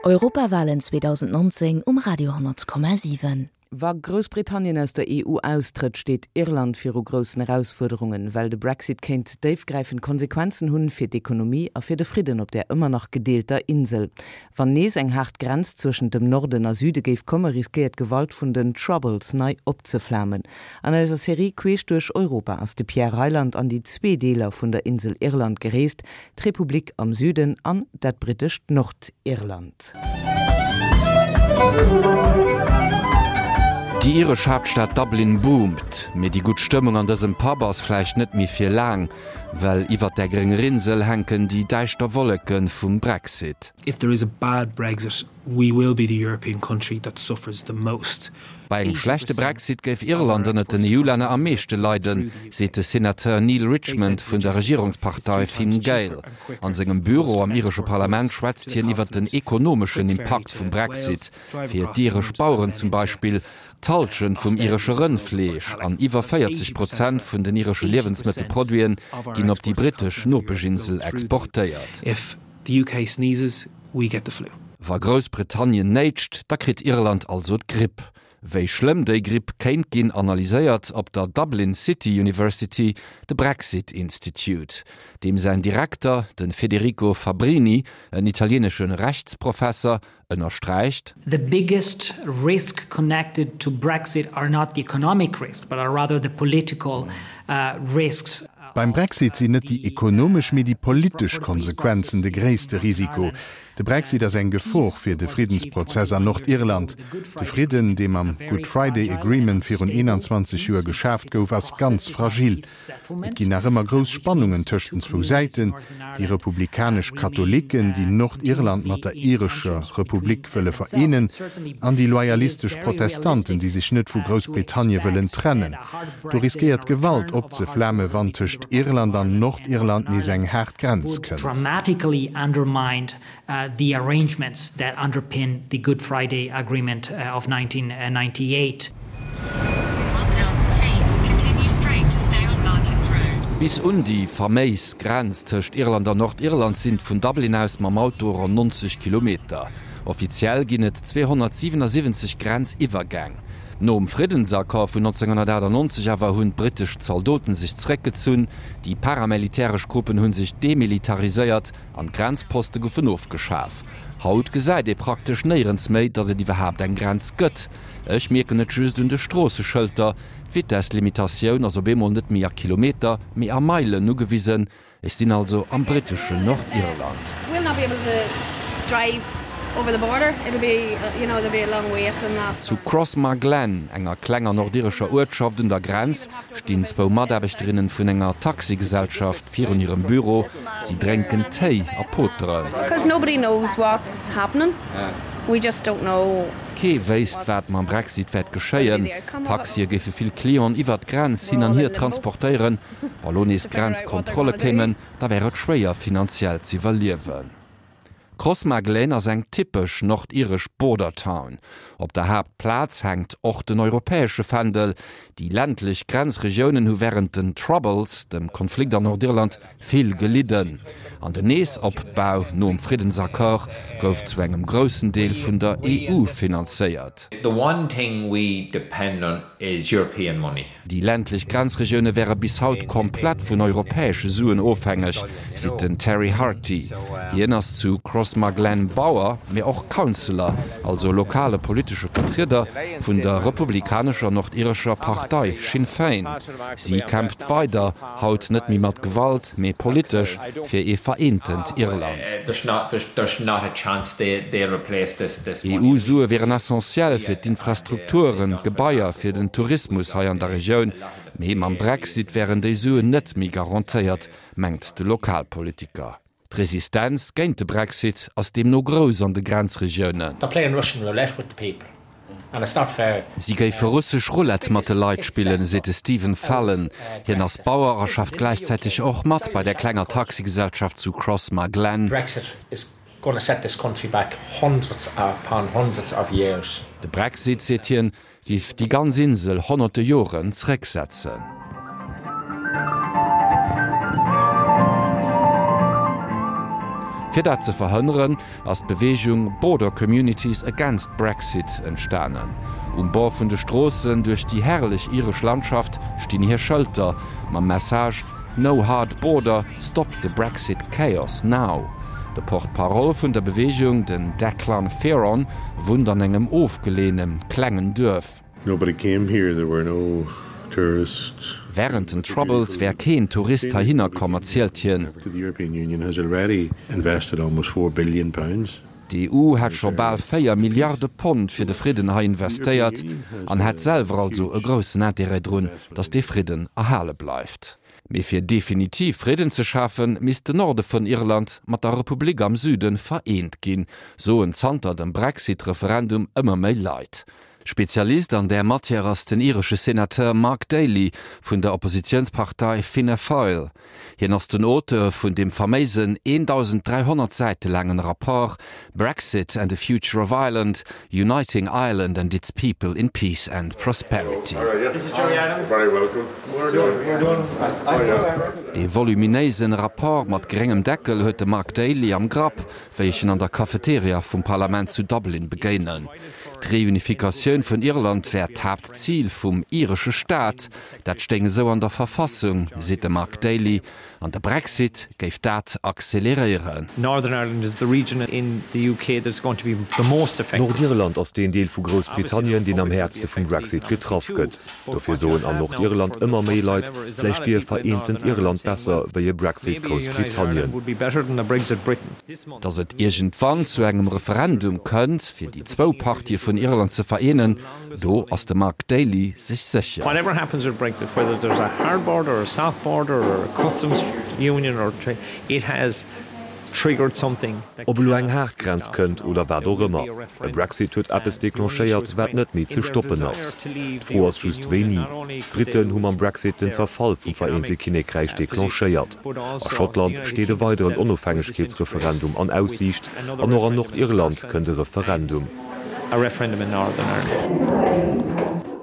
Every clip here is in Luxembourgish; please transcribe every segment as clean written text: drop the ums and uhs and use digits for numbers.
Europawalen 2019 um Radio 10,7. Wa Groussbritannien aus der EU austrëtt, steet Irland viru groussen Erausfuerderungen, well de Brexit kéint déifgräifend Konsequenzen hunn fir d'Ekonomie a fir de Fridden op där ëmmer nach gedeelter Insel. Wann nees eng haart Grenz zwëschent dem Norden a Süde géif komme, riskéiert d'Gewalt vun den Troubles nei opzeflamen. An eiser Serie Queesch duerch Europa ass de Pierre Reyland an déi zwee Deeler vun der Insel Irland gereest, d'Republik am Süden an dat brittescht Nordirland. Déi iresch Haaptstad Dublin boomt, mee déi gutt Stëmmung an dësem Pub ass vläicht net méi fir laang, well iwwert där grénger Insel hänken déi däischter Wolleke vum Brexit. If there is a bad Brexit, we will be the European country that suffers the most. Bei engem schlechte Brexit géif Irland ënnert den EU-Länner am meeschte leiden, seet de Senateur Neale Richmond vun der Regierungspartei Fine Gael. An sengem Büro am iresche Parlament schwätzt hien iwwer den ekonomeschen Impakt vum Brexit. Fir d'iresch Baueren zum Beispill, d'Hallschent vum iresche Rëndfleesch an iwwer 40 Prozent vun den iresche Liewensmëttelproduiten ginn op déi brittesch Nopeschinsel exportéiert. The UK sneezes, we get the flu. Wa Groussbritannien néitscht, da kritt Irland also d'Gripp. Wéi schlëmm déi Gripp kéint ginn, analyséiert op der Dublin City University de Brexit Institute. Deem säin Direkter, de Federico Fabbrini, en italieenesche Rechtsprofesser, ënnersträicht. The biggest risk connected to Brexit are not the economic risks, but are rather the political risks. Beim Brexit sinn net déi ekonomesch, mee déi politesch Konsequenzen de gréisste Risiko. De Brexit ass eng Gefor fir de Friddensprozess an Nordirland. De Fridden, dee mam Good Friday Agreement virun 21 Joer geschaaft gouf, ass ganz fragil. Et ginn nach ëmmer grouss Spannungen tëscht den zwou Säiten. Déi republikanesch Katholiken, déi Nordirland mat der irescher Republik wëlle vereenen, an déi loyalistesch Protestanten, déi sech net vu Groussbritannie wëllen trennen. Do riskéiert Gewalt opzeflame wann tëscht Irland an Nordirland nees eng haart Grenz kënnt. The arrangements that underpin the Good Friday Agreement of 1998. Bis un déi faméis Grenz tëscht Irland an Nordirland sinn vun Dublin aus mam Auto ronn 90 Kilometer. Offiziell ginn et 277 Grenziwwergäng. Nom Friddensaccord vun 1998 awer hunn d'brittesch Zaldoten sech zeréckgezunn, déi paramilitäresch Gruppen hu sech demilitariséiert An d'Grenzposte goufen ofgeschaf. Haut gesäit ee praktesch néierens méi, datt et iwwerhaapt eng Grenz gëtt. Ech mierken et just un de Stroosseschëlter, D'Vitesslimitatioun ass op eemol net méi a Kilometer, mee a Meilen ugewisen. Ech sinn also am britteschen Nordirland. Zu Crossmaglen, enger klenger nordirescher Uertschaft un der Grenz, stinn zwou Mataarbechterinnen vun enger Taxigesellschaft virun hirem Büro. Si drénken Téi a poteren. Kee wéisst, wat mam Brexit wäert geschéien. D'Taxie géife vill Clienten iwwert d'Grenz hin an hier transportéieren. Wa lo nees Grenzkontrolle kéimen, da wär et schwéier finanziell z'iwwerliewen. Crossmaglen ass eng typesch nordiresch Border Town. Op der Haaptplaz hänkt och den europäesche Fändel. Déi ländlech Grenzregiounen hu wärend den Troubles, dem Konflikt an Nordirland, vill gelidden. An den Neesopbau nom Friddensaccord gouf zu engem groussen Deel vun der EU finanzéiert. The one thing we depend on is European money. Déi ländlech Grenzregioune wäre bis haut komplett vun europäesche Suen ofhängeg, seet den Terry Harty. Hien ass zu Crossmaglen Bauer, mee och Councillor, also lokale politesche Vertrieder vun der republikanescher nordirescher Partei Sinn Féin. Si kämpft weider, haut net méi mat Gewalt, mee politesch, fir ee vereentent Irland. EU-Sue wieren essentiell fir d'Infrastrukturen, d'Gebaier, fir den Tourismus hei an der Regioun, mee mam Brexit wären déi Suen net méi garantéiert, mengt de Lokalpolitiker. D'Resistenz géint de Brexit ass deemno grouss an de Grenzregiounen. Si géife russesch Roulette mat de Leit spillen, seet de Stephen Fallon. Hien ass Bauer a schafft gläichzäiteg och mat bei der klenger Taxigesellschaft zu Crossmaglen. De Brexit, seet hien, Giff déi ganz Insel honnerte Joren zrécksetzen. Fir dat ze verhënneren, ass d'Beweegung Border Communities Against Brexit entstanen. Um Bord vun de Stroossen duerch déi herrlech iresch Landschaft stinn hir Schëlter mam Message No hard border, stop the Brexit chaos now. De Porte-parole vun der Beweegung, den Declan Fearon, wunnt an engem ofgeleeëne klengen Duerf. Nobody came here, there were no tourists. Wärend den Troubles wär keen Tourist heihinner komm, erzielt hien. The European Union has already invested almost 4 billion pounds. D'EU hätt scho bal 4 Milliarde Pond fir de Fridden hei investéiert an hätt selwer also e groussen Interêt drun, datt dee Fridden erhale bleift. Mee fir definitiv Fridden ze schafen, misst den Norde vun Irland mat der Republik am Süde vereent ginn, soen zanter dem Brexit-Referendum ëmmer méi Leit. Spezialist an där Matière ass den iresche Senateur Mark Daly vun der Oppositiounspartei Fianna Fáil. Hien ass den Auteur vun deem faméisen 1.300 Säite laangen Rapport Brexit and the Future of Ireland, Uniting Ireland and its People in Peace and Prosperity. Dee voluminéisen Rapport mat gréngem Deckel huet de Mark Daly am Grapp, wéi ech en an der Cafeteria vum Parlament zu Dublin begéinen. D'Reunifikatioun vun Irland wär d'Haaptzil vum iresche Staat, dat stéing esou an der Verfassung, seet de Mark Daly, an de Brexit géif dat acceleréieren. Nordirland ass deen Deel vu Groussbritannien, deen am häertste vum Brexit getraff gëtt. Dofir soen an Nordirland ëmmer méi Leit, vläicht wier e vereentent Irland besser wéi e Brexit Groussbritannien. Datt et iergendwann zu engem Referendum kënnt, fir déi zwou Partië vun Irland ze vereenen, do ass de Mark Daly sech sécher. Ob elo eng haart Grenz kënnt oder wat och ëmmer, e Brexit huet eppes declenchéiert, wat net méi ze stoppen ass. D'Fro ass just wéini. D'Britten hu mam Brexit den Zerfall vum Vereente Kinnekräich declenchéiert. A Schottland steet e weideren Onofhängegkeetsreferendum an Aussiicht an och an Nordirland kënnt e Referendum.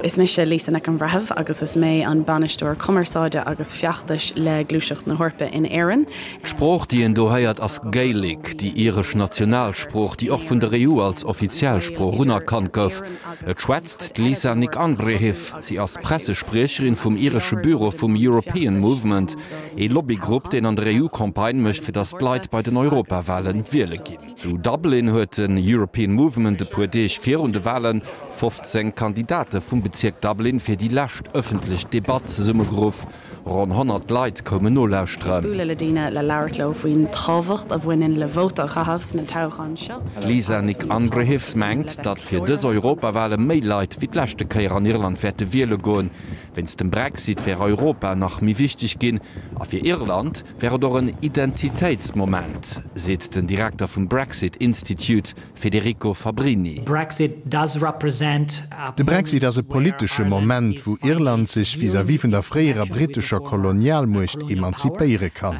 Is mise Lisa Nic an Bhreithimh agus is mé an Bainisteoir Cumarsáide agus Feachtais le Gluaiseacht na hEorpa in Éirinn. D'Sprooch, déi een do héiert, ass Gaelic, déi iresch Nationalsprooch, déi och vun der EU als offiziell Sprooch unerkannt gouf. Et schwätzt d'Lisa Nic an Bhreithimh. Si ass Pressespriecherin vum iresche Büro vum European Movement, ee Lobbygrupp, deen an der EU Campagne mécht, fir datt d'Leit bei den Europawale wiele ginn. Zu Dublin huet den European Movement e puer Deeg virun de Wale 15 Kandidate vum Bezierk Dublin fir déi lescht ëffentlech Debatt zesummegeruff. Ronn 100 Leit koumen nolauschteren. Bualadh le daoine le labhairt leo faoin tábhacht a bhaineann le vóta a chaitheamh sna toghcháin seo. D'Lisa Nic an Bhreithimh mengt, datt fir dës Europawale méi Leit wéi d'leschte Kéier an Irland wäerte wiele goen. Wéinst dem Brexit wär Europa nach méi wichteg ginn a fir Irland wär et och en Identitéitsmoment, seet den Direkter vum Brexit Institute Federico Fabbrini. De Brexit ass e politesche Moment, wou Irland sech vis-à-vis vun der fréierer brittescher Kolonialmuecht emanzipéiere kann.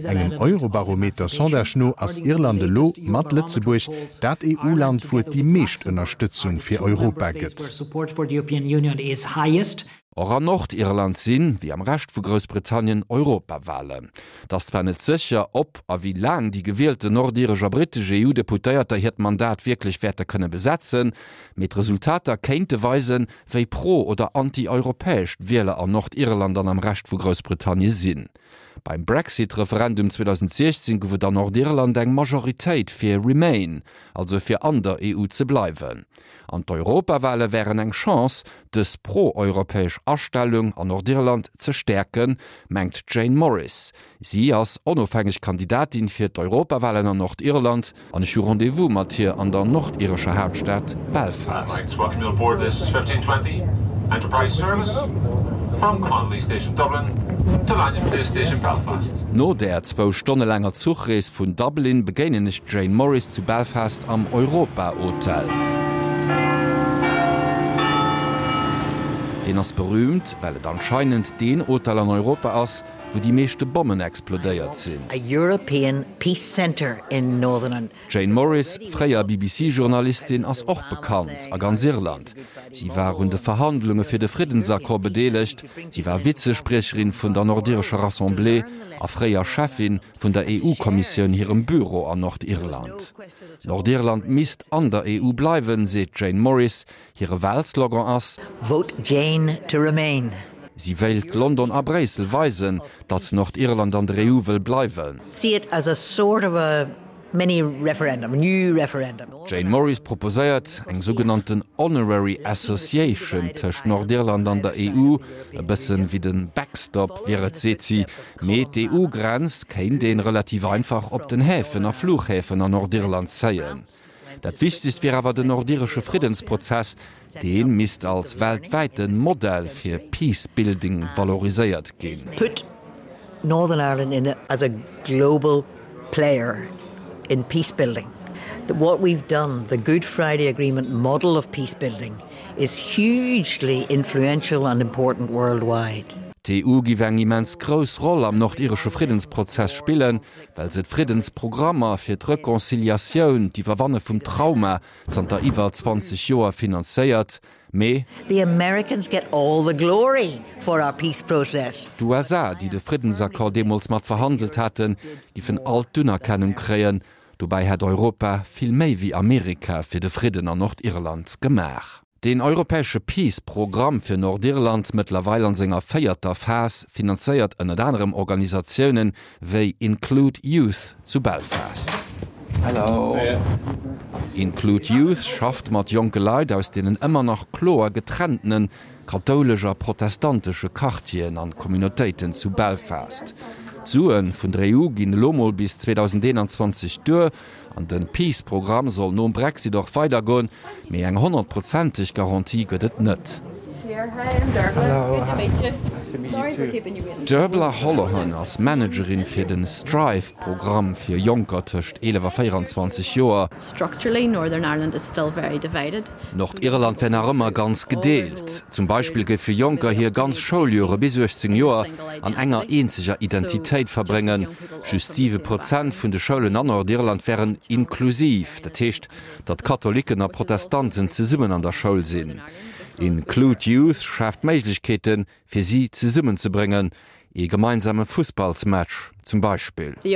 Engem Eurobarometer-Sondage no ass Irland elo, mat Lëtzebuerg, dat EU-Land, wou et déi meescht Ënnerstëtzung fir Europa gëtt. Och an Nordirland sinn, wéi am Rescht vu Groussbritannien, Europawalen. Et ass zwar net sécher, ob a wéi laang déi gewielten nordiresch a brittesch EU-Deputéierter hiert Mandat wierklech wäerte kënne besetzen, mee d'Resultater kéinte weisen, wéi pro oder anti-europäesch d'Wieler an Nordirland an am Rescht vu Groussbritannien sinn. Beim Brexit-Referendum 2016 gouf et an Nordirland eng Majoritéit fir Remain, also fir an der EU ze bleiwen. An d'Europawale wären eng Chance, dës pro-europäesch Astellung an Nordirland ze stäerken, mengt d'Jane Morris. Si ass onofhängeg Kandidatin fir d'Europawalen an Nordirland an ech hu Rendez-vous mat hir an der nordirescher Haaptstad Belfast. No där zwou Stonne laanger Zuchrees vun Dublin begéinen ech d'Jane Morris zu Belfast am Europa Hotel. Deen ass berühmt, well et anscheinend deen Hotel an Europa ass, wou déi meeschte Bommen explodéiert sinn. D'Jane Morris, fréier BBC-Journalistin, ass och bekannt a ganz Irland. Si war un de Verhandlunge fir de Friddensaccord bedeelegt, si war Vizespriecherin vun der nordirescher Rassemblée a fréier Cheffin vun der EU-Kommissioun hirem Büro an Nordirland. Nordirland misst an der EU bleiwen, seet d'Jane Morris. Hire Walslogan ass. Vote Jane to remain. Si wéilt London a Bréissel weisen, datt Nordirland an der EU wëll bleiwen. See it as a sort of a mini referendum, a new referendum. D'Jane Morris proposéiert eng sougenannten Honorary Association tëscht Nordirland an der EU, e bëssen wéi de Backstop wier et, seet si. Mee d'EU-Grenz kéint een relativ einfach op den Häfen a Fluchhäfen an Nordirland zéien. Dat Wichtegst wier awer den nordiresche Friddensprozess, dee misst als weltwäite Modell fir Peace-Building valoriséiert ginn. Put Northern Ireland in as a global player in peace-building. What we've done, the Good Friday Agreement model of peace-building, is hugely influential and important worldwide. D'EU giff eng immens grouss Roll am nordiresche Friddensprozess spillen, well se d'Friddensprogrammer fir d'Reconciliatioun, d'Iwwerwanne vum Trauma, zanter iwwer 20 Joer finanzéiert. Mee. The Americans get all the glory for our peace process. D'USA, déi de Friddensaccord deemools mat verhandelt haten, giffen all d'Unerkennung kréien. Dobäi hätt Europa vill méi wéi Amerika fir de Fridden an Nordirland gemaach. Deen europäesche Peace Programm fir Nordirland, mëttlerweil an senger véierter Phas, finanzéiert ënnert anerem Organisatiounen wéi Include Youth zu Belfast. Include Youth schafft mat jonke Leit aus deenen ëmmer nach kloer getrenntene kathoulesch a protestantesche Quartieren an Communautéiten zu Belfast. D'Sue vun der EU ginn elo mol bis 2021 duer. An den Peace Programm soll nom Brexit och weider goen, mee eng honnertprozenteg Garantie gëtt et net. D'Derbla Holohan ass Managerin fir den Strive Programm fir Jonker tëscht 11 a 24 Joer. Nordirland wär nach ëmmer ganz gedeelt. Zum Beispill géife Jonker hir ganz Schouljore bis 18 Joer an enger eenzeger Identitéit verbréngen. Just 7 Prozent vun de Schoulen an Nordirland wären inklusiv, dat heescht, datt Katholicken a Protestanten zesummen an der Schoul sinn. Include Youth schaaft Méiglechkeeten, fir si zesummenzebréngen, ee gemeinsame Fussballsmatch zum Beispill. Vill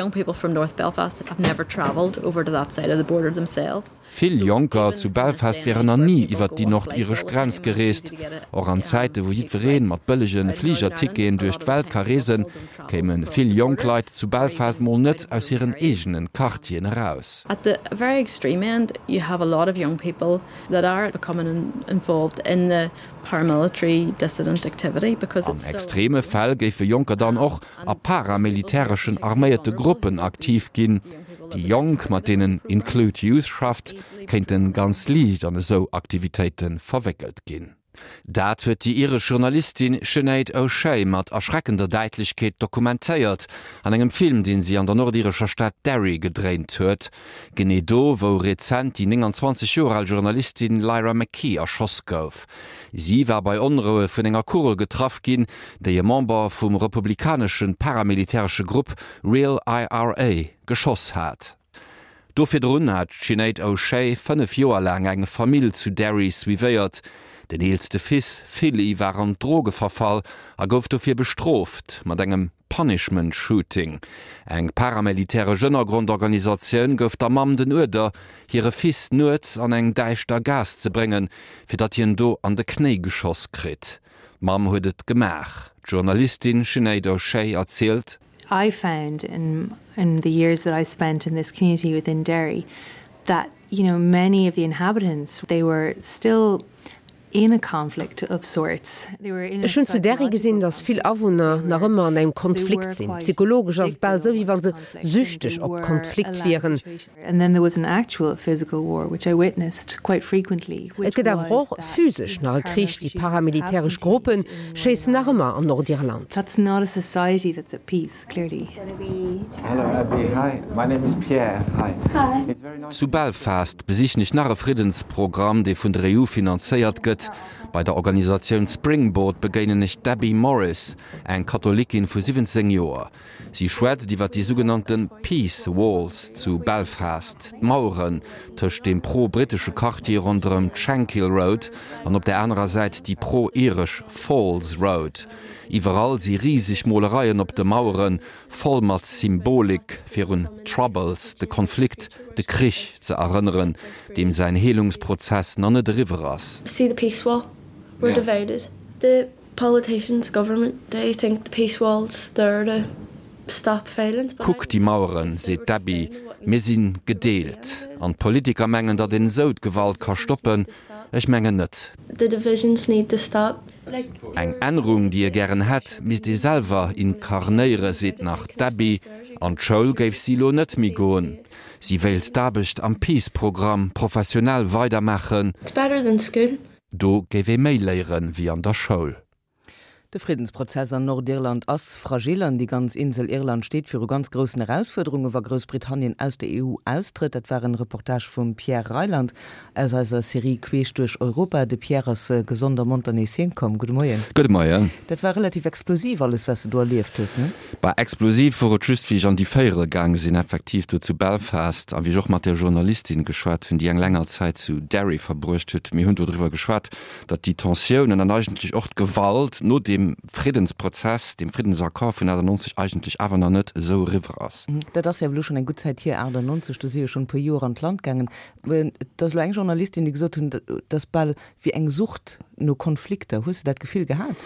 Jonker zu Belfast wären nach ni iwwert déi nordiresch Grenz gereest. Och an Zäite wou jiddweree mat bëllege Fligerticketen duerch d'Welt ka reesen, kéime vill jonk Leit zu Belfast mol net aus hiren eegene Quartieren eraus. At the very extreme end you have a lot of young people that are becoming involved in the paramilitary dissident activity because An it's still. Extreme Fäll géife Jonker dann och a paramilitäreschen arméierte Gruppen aktiv ginn. Déi Jonk, mat deenen Include Youth schafft, kéinte ganz liicht an esou Aktivitéite verwéckelt ginn. Dat huet déi iresch Journalistin Sinéad O'Shea mat erschreckender Däitlechkeet dokumentéiert an engem Film, deen si an der nordirescher Stad Derry gedréint huet. Genee do, wou rezent déi 29 Joer al Journalistin Lyra McKee erschoss gouf. Si war bei Onroue vun enger Kugel getraff ginn, déi e Member vum republikanesche paramilitäresche Grupp Real IRA geschoss hat. Do virdrun hat d'Sinéad O'Shea 5 Joer laang eng Famill zu Derry suivéiert. Den eelste Fils Philly war an d'Droge verfall a gouf dofir bestrooft mat engem Punishment Shooting. Eng paramilitäresch Ënnergrondorganisatioun gouf der Mamm den Uerder, hire Fils nuets an eng däischter Gaass ze bréngen, fir datt hien do an de Knéi geschoss kritt. D'Mamm huet et gemaach. D'Journalistin Sinéad O'Shea erzielt. I found in in the years that I spent in this community within Derry that you know many of the inhabitants they were still in a conflict of sorts. They were in a Ech hunn zu Derry gesinn, datt vill Awunner nach ëmmer an engem Konflikt sinn. Psychologesch ass et bal esou, wéi wa se süchteg op Konflikt wieren. And then there was an actual physical war, which I witnessed quite frequently, Et which gëtt awer was och that physesch nach e Krich, déi paramilitäresch Gruppe schéissen nach ëmmer an Nordirland. That's not a society that's at peace, clearly. Zu Belfast besichen ech nach e Friddensprogramm, dee vun der EU finanzéiert gëtt. Leit. Bei der Organisatioun Springboard begéinen ech d'Debbie Morris, eng Katholikin vu 17 Joer. Si schwätzt iwwer déi sougenannte Peace Walls zu Belfast, d'Maueren tëscht deem pro-brittesche Quartier ronderëm d'Shankill Road an op der anerer Säit déi pro-iresch Falls Road. Iwwerall si riseg Molereien op de Maueren, voll mat Symbolik, fir un d'Troubles, de Konflikt, de Krich ze erënneren, deem säin Heelungsprozess nach net eriwwer ass. See the peace wall, we're divided. The Politicians, government, they think the peace wall's there to stop violence, but I Kuck déi Maueren, seet d'Debbie, mir si gedeelt. An d'Politiker mengen, datt een esou d'Gewalt ka stoppen. Ech mengen net. The divisions need to stop. Eng Ännerung, déi ee gären hätt, misst ee selwer inkarnéiere, seet nach d'Debbie. An d'Schoul géif si lo net méi goen. Si wéilt d'Aarbecht am Peace-Programm professionell weidermaachen. It's better than school. Do géif ee méi léiere wéi an der Schoul. De Friddensprozess an Nordirland ass fragil an déi ganz Insel Irland steet viru ganz groussen Erausfuerderunge wa Groussbritannien aus der EU austrëtt. Dat war en Reportage vum Pierre Reyland aus eiser Serie Queesch duerch Europa. De Pierre ass gesond a monter nees heem komm. Gudde Moien. Gudde Moien. Dat war relativ explosiv alles wat s de do erlieft hues, ne? Bah, explosiv wor et just wéi ech an déi Véierel gaang sinn, effektiv do zu Belfast, a wéi ech och mat där Journalistin geschwat hunn, déi eng länger Zäit zu Derry verbruecht huet. Mir hunn do driwwer geschwat, datt déi Tensiounen an eigentlech och d'Gewalt no deem Friddensprozess, deem Friddensaccord vun 98 eigentlech awer nach net esou eriwwer ass. Dat ass jo elo schonn eng gutt Zäit hier, 98, do si jo schonn e puer Joer an d'Land gaangen. Et ass elo eng Journalistin, déi gesot hunn, et ass bal wéi eng Sucht no Konflikter. Hues de dat Gefill gehat?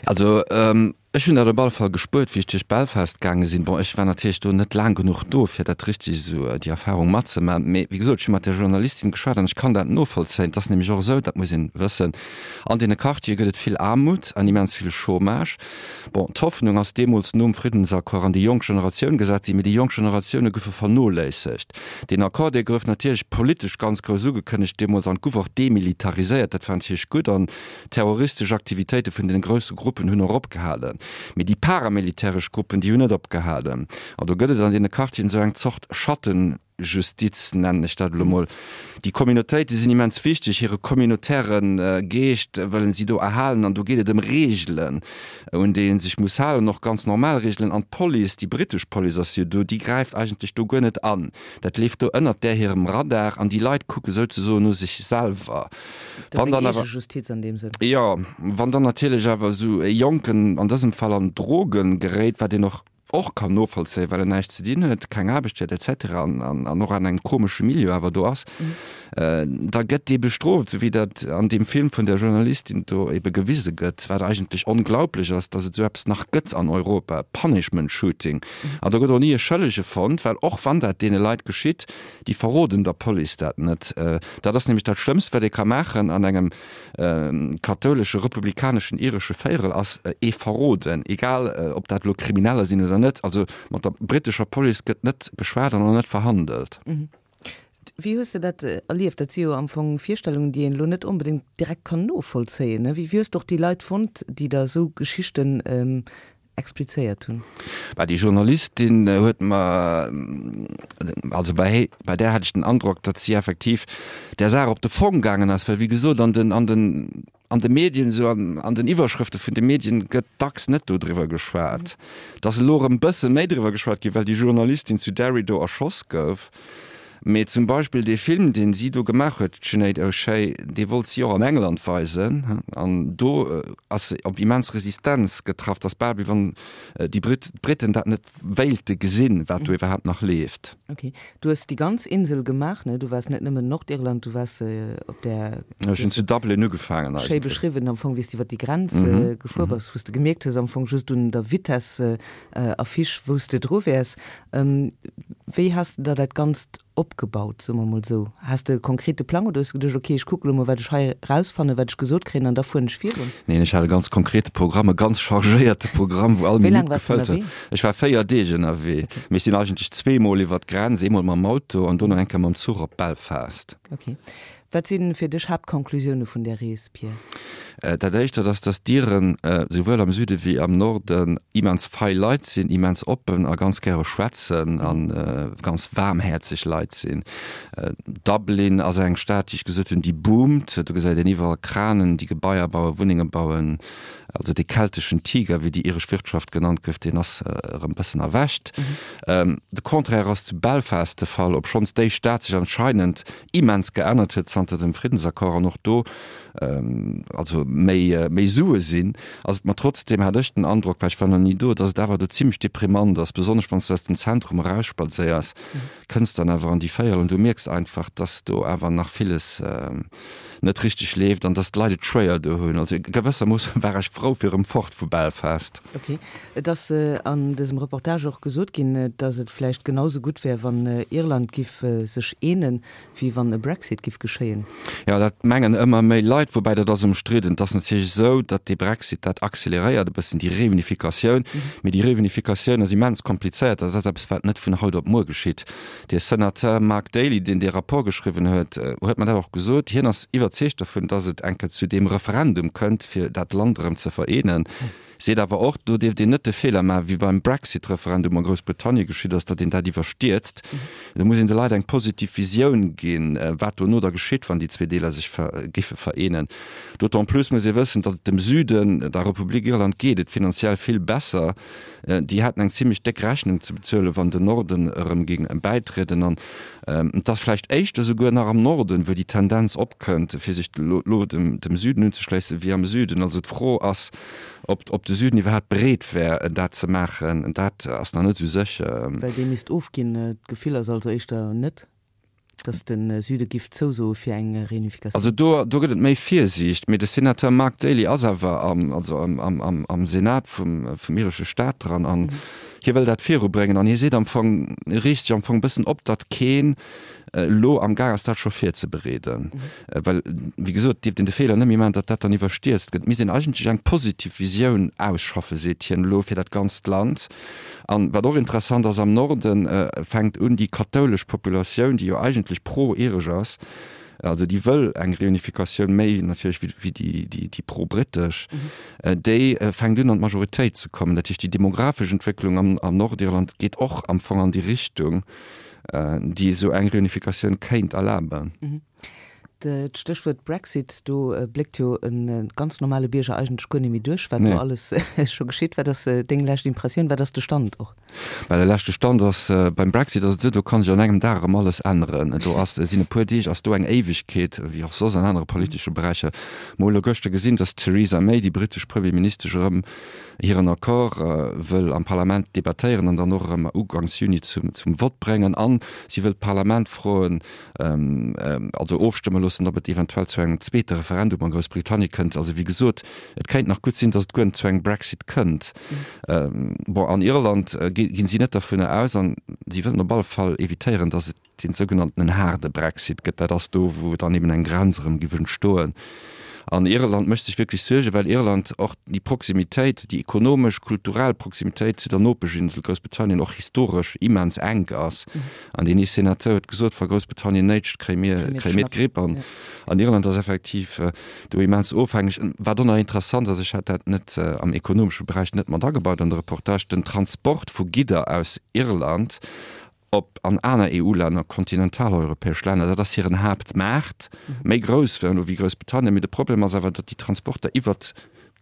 Also, Ech hunn dat op alle Fall gespuert, wéi ech duerch Belfast gaange sinn. Bon, ech war natierlech do net laang genuch do, fir dat richteg esou, déi Erfahrung matzemaachen. Mee wéi gesot, ech hu mat där Journalistin geschwat an ech kann dat novollzéien. Et ass nämlech och esou, dat muss een wëssen, an deene Quartiere gëtt et vill Aarmut an immens vill Chômage. Bon, d'Hoffnung ass deemools nom Friddensaccord an déi jonk Generatioun gesat ginn, mee déi jonk Generatioune goufe vernoléissegt. Deen Accord, dee gouf natierlech politesch ganz grouss ugekënnegt deemools an gouf och demilitariséiert. Dat war natierlech gutt an Terroristesch Aktivitéite vun den grousse Gruppen hunn och opgehalen. Mee déi paramilitäresch Gruppen, déi hunn net opgehalen. An do gëtt et an deene Quartieren esou eng Zort Schattenjustiz, nennen ech dat elo mol. Déi Communautéite sinn immens wichteg, hire communautaire Geescht wëllen si do erhalen. An do geet et ëm Reegelen, un déi ee sech muss halen, och ganz normal Reegelen. An d'Police, déi brittesch Police ass jo do, déi gräift eigentlech do guer net an. Dat leeft do ënnert där hirem Radar an déi Leit kucke souzesoen no sech selwer. Wann dann awer, Justiz an deem Sënn. Jo, wann dann natierlech awer esou e Jonken, an dësem Fall an Drogen geréit, wat een och och kann novollzéien, well en näischt ze dinn huet, keng Aarbecht huet et cetera an an och an engem komesche Milieu awer do ass, da gëtt dee bestrooft, esou wéi dat an deem Film vun der Journalistin do ebe gewise gëtt, wat eigentlech onglaublech ass, datt et esou eppes nach gëtt an Europa, Punishment Shooting. An do gëtt och ni e Schëllege fonnt, well och wann dat deene Leit geschitt, Déi verroden der Police dat net. Dat ass nämlech dat Schlëmmst, wat ee ka maachen an engem kathoulesche, republikaneschen, iresche Véierel, ass ee verroden, egal ob dat elo Krimineller sinn oder net. Also mat der brittescher Police gëtt net geschwat an och net verhandelt. Wéi hues de dat erlieft? Dat si jo am Fong Virstellungen, déi een elo net onbedéngt direkt kann novollzéien. Wéi hues de och déi Leit fonnt, déi der esou Geschichten explizéiert hunn. Bah, déi Journalistin huet mer, also bei, bei där hat ech den Androck, datt si effektiv där Saach op de Fong gaangen ass, well wéi gesot an den, an den, an de Medien esou an, an den Iwwerschrëfte vun de Medien gëtt dacks net dodriwwer geschwat. Et ass elo erëm e bësse méi driwwer geschwat ginn, well déi Journalistin zu Derry do erschoss gouf. Mee zum Beispill dee Film, deen si do gemaach huet, d'Sinéad O'Shea, dee wollt si och an England weisen an do ass se op immens Resistenz getraff. Et ass bal wéi wann déi Brit, d'Briten dat net wéilte gesinn, wat do iwwerhaapt nach leeft. Ok. Du hues déi ganz Insel gemaach, ne? Du waars net nëmmen Nordirland, du waars op där. Ech hunn zu Dublin ugefaangen eigentlech. Schéi beschriwwen am Fong, wéi s de iwwer déi Grenz gefuer bass, wou s de gemierkt hues am Fong just un der Vitesse Affiche, wou s de dru wäers. Wéi has de der dat Ganzt opgebaut, soe mer mol esou? Has de e konkrete Plang oder hues de geduecht, ok, ech kucke lo mol, wat ech hei erausfannen, wat ech gesot kréien an da fueren ech virun? Neen, ech hat e ganz konkrete Programm, e ganz chargéierte Programm, wou all Wéi laang Minutt waars de gefëllt war. ënnerwee? Ech war 4 Deeg ënnerwee, mee ech sinn eigentlech zweemol iwwer d'Grenz, eemol mam Auto an dono eng Kéier mam Zuch op Belfast. Ok. Wat si fir dech Haaptconclusioune vun där Rees, Pierre? Dat éischt, dat ass, datt d'Iren souwuel am Süde wéi am Norden immens fei Leit sinn, immens oppen a ganz gäre schwätzen a ganz waarmhäerzeg Leit sinn. Dublin ass eng Stad, déi ech gesot hunn, déi boomt. Do gesäit een iwwerall Kranen, déi Gebaier bauen, Wunnenge bauen. Also dee kelteschen Tiger, wéi déi iresch Wirtschaft genannt gouf, deen ass erëm bëssen erwächt. De Contraire ass zu Belfast de Fall, obschonns déi Stad sech anscheinend immens geännert huet zanter dem Friddensaccord an och do also méi méi Sue sinn, ass et mer trotzdeem, hat ech den Androck, well ech war nach ni do, datt et awer do zimmlech deprimant ass, besonnesch wann s de aus dem Zentrum erausspadséiers, kënns dann awer an déi Véierel an du mierks einfach, datt do awer nach villes net richteg leeft an datt d'Leit et schwéier do hunn. Also gewëssermoosse war ech frou fir erëm fort vu Belfast. Ok. Et ass an dësem Reportage och gesot ginn, datt et vläicht genau sou gutt wär, wann Irland giff sech eenen, wéi wann e Brexit giff geschéien. Jo, dat mengen ëmmer méi Leit, woubäi dat ass ëmstridden. Et ass natierlech esou, datt dee Brexit, dat acceleréiert e bëssen déi Reunificatioun. Mee déi Reunificatioun ass immens komplizéiert. Dat ass eppes, wat net vun haut op muer geschitt. De Senateur Mark Daly, deen dee Rapport geschriwwen huet, huet mer dat och gesot. Hien ass iwwerzeegt dovun, datt et eng Kéier zu deem Referendum kënnt, fir dat Land erëm ze vereenen. Seet awer och, do dierft een net de Feeler maachen, wéi beim Brexit-Referendum a Groussbritannien geschitt ass, datt een dat iwwerstierzt. Do muss een de Leit eng positiv Visioun ginn, wat dono da geschitt, wann déi zwee Deeler sech giffe vereenen. D'autant plus muss ee wëssen, datt et dem Süden, der Republik Irland, geet et finanziell vill besser. Déi hätten eng zimlech déck Rechnung ze bezuelen, wann den Norden erëm géing bäitrieden. An et ass vläicht éischter souguer nach am Norden, wou déi Tendenz opkënnt, fir sech elo dem Süden unzeschléissen, wéi am Süden. Also d'Fro ass, ob de Süden iwwerhaapt bereet wär, dat ze maachen. Dat ass nach net esou sécher. Well dee misst ofginn. D'Gefill ass also éischter net. Datt de Süde giff zousoe fir eng Reunificatioun. Also do, do gëtt et méi Virsiicht. Mee de Senateur Mark Daly ass awer am, also am, am, am, am Senat vum, vum iresche Staat dran an hie wëll dat virubréngen an hie seet am Fong, reegt sech am Fong e bëssen op, datt keen elo am Gaang ass dat scho virzebereeden. Well, wéi gesot, dierft een de Feeler net méi maachen, datt dat dann iwwerstierzt gëtt. Et misst een eigentlech eng positiv Visioun ausschaffen, seet hien elo, fir dat ganzt Land. An wat och interessant ass, am Norde fänkt un déi kathoulesch Populatioun, déi jo eigentlech pro-iresch ass, also déi wëll eng Reunificatioun méi natierlech wéi déi pro-britesch, déi fänkt un an d'Majoritéit ze kommen. Dat heescht, déi demografesch Entwécklung am Nordirland geet och am Fong an déi Richtung, déi esou eng Reunificatioun kéint erlaben. D'Stéchwuert Brexit, do bléckt jo e ganz normale Bierger eigentlech guer net méi duerch, wat do alles scho geschitt. Wat ass deng lescht Impressioun? Wat ass de Stand och? Bah, de leschte Stand ass, beim Brexit ass et esou, do kann sech an engem Dag erëm alles änneren. Do ass, sinn e puer Deeg ass do eng Éiwegkeet, wéi och soss an anere politesche Beräicher. Mer hu elo gëschter gesinn, datt d'Theresa May, déi britesch Premierministesch, erëm hiren Accord wëll am Parlament debattéieren an dann och erëm uganks Juni zum Vott bréngen. An si wëll d'Parlament froen, also ofstëmme loossen, ob et eventuell zu engem zweete Referendum a Groussbritannien kënnt. Also wéi gesot, et kéint nach gutt sinn, datt et guer net zu engem Brexit kënnt. Bon, an Irland ginn si net dovunner aus an si wëllen op alle Fall evitéieren, datt et dee sougenanntenen haarde Brexit gëtt. Dat ass do, wou dann eben eng Grenz erëm giff entstoen. An Irland mécht sech wierklech Suergen, well Irland och déi Proximitéit, déi ekonomesch, kulturell Proximitéit zu der Nopeschinsel Groussbritannien och historesch immens enk ass. An deen ee Senateur huet gesot, wa Groussbritannien néitscht, kréie mir, kréie mir d'Gripp. An, an Irland ass effektiv do immens ofhängeg. Wat och nach interessant ass, ech hat dat net am ekonomesche Beräich net mat agebaut an de Reportage, den Transport vu Gidder aus Irland op an aner EU-Länner, kontinentaleuropäesch Länner, dat ass hiren Haaptmaart, méi grouss wéi elo wéi Groussbritannien. Mee de Problem ass awer, datt déi Transporter iwwert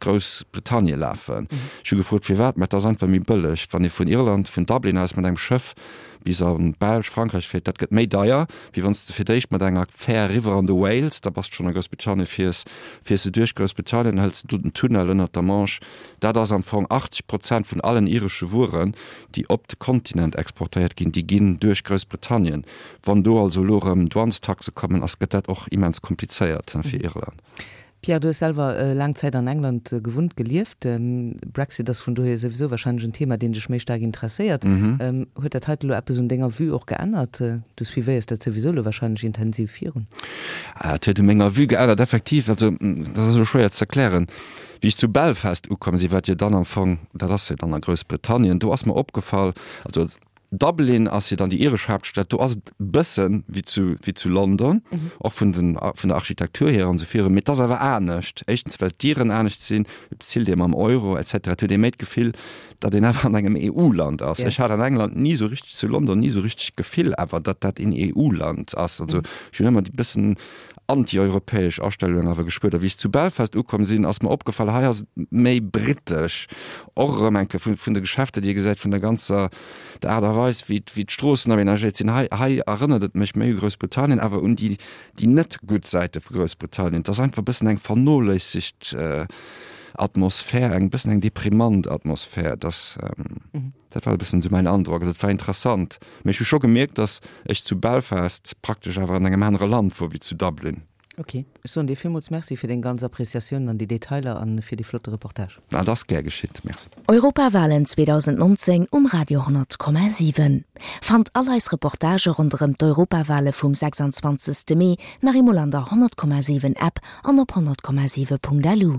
Groussbritannie lafen. Ech hu gefrot firwat, mä et ass einfach méi bëlleg, wann ee vun Irland, vun Dublin aus mat engem Schëff bis an d'Belsch, Frankräich fiert, dat gëtt méi deier, wéi wann s de fir d'éischt mat enger Fär eriwwer an de Wales, da bass de schonn a Groussbritannien, fiers, fiers de duerch Groussbritannien, hëls de do den Tunnel ënnert der Manche. Dat ass am Fong 80 Prozent vun allen iresche Wueren, déi op de Kontinent exportéiert ginn, déi ginn duerch Groussbritannien. Wann do also elo erëm Douanestaxe kommen, ass, gëtt dat och immens komplizéiert fir Irland. Pierre, du hues selwer laang Zäit an England gewunnt, gelieft. Brexit ass vun dohier souwisou wahrscheinlech en Thema, deen dech méi staark interesséiert. Huet dat heite lo eppes un denger Vue och geännert? Du suivéiers dat souwisou lo wahrscheinlech intensiv virun. Et huet u menger Vue geännert, effektiv. Also, dat ass elo schwéier ze erklären. Wéi ech zu Belfast ukomm sinn, wat jo dann am Fong, dat ass jo dann a Groussbritannien, do ass mer opgefall, also. Dublin ass jo dann déi iresch Haaptstad, do ass et e bësse wéi zu, wéi zu London, och vun den, vun der Architektur hier an esou virun, mee et ass awer anescht. Éischtens well d'Dieren anescht sinn, et bezilt ee mam Euro et cetera. Et huet ee méi d'Gefill, datt een awer an engem EU-Land ass. Ech hat an England ni esou richteg, zu London ni esou richteg d'Gefill awer, datt dat een EU-Land ass. Also ech hunn ëmmer déi bëssen anti-europäesch Astellung awer gespuert. A wéi ech zu Belfast ukomm sinn, ass mer opgefall, hei ass et méi britesch, och erëm eng Kéier vun, vun de Geschäfter, déi ee gesäit, vun der ganzer, der Aart a Weis, wéi, wéi d'Stroossen aménagéiert sinn. Hei, hei erënnert et mech méi u Groussbritannien, awer un déi, déi net gutt Säite vu Groussbritannien. Et ass einfach e bëssen eng vernoléissegt Atmosphär, eng bëssen eng deprimant Atmosphär. Et ass. Dat war e bëssen esou mäin Androck. Also et war interessant, mee ech hu scho gemierkt, datt ech zu Belfast praktesch awer an engem anere Land wor wéi zu Dublin. Ok, ech soen dir villmools Merci fir deng ganz Appreciatiounen an déi Detailer an fir dee flotte Reportage. Dat ass gär geschitt, Merci. Europawalen 2019 um Radio 10,7. Fannt all eis Reportagë ronderëm d'Europawale vum 26. Mee nach eemol an der 100,7 App an op 100,7.lu.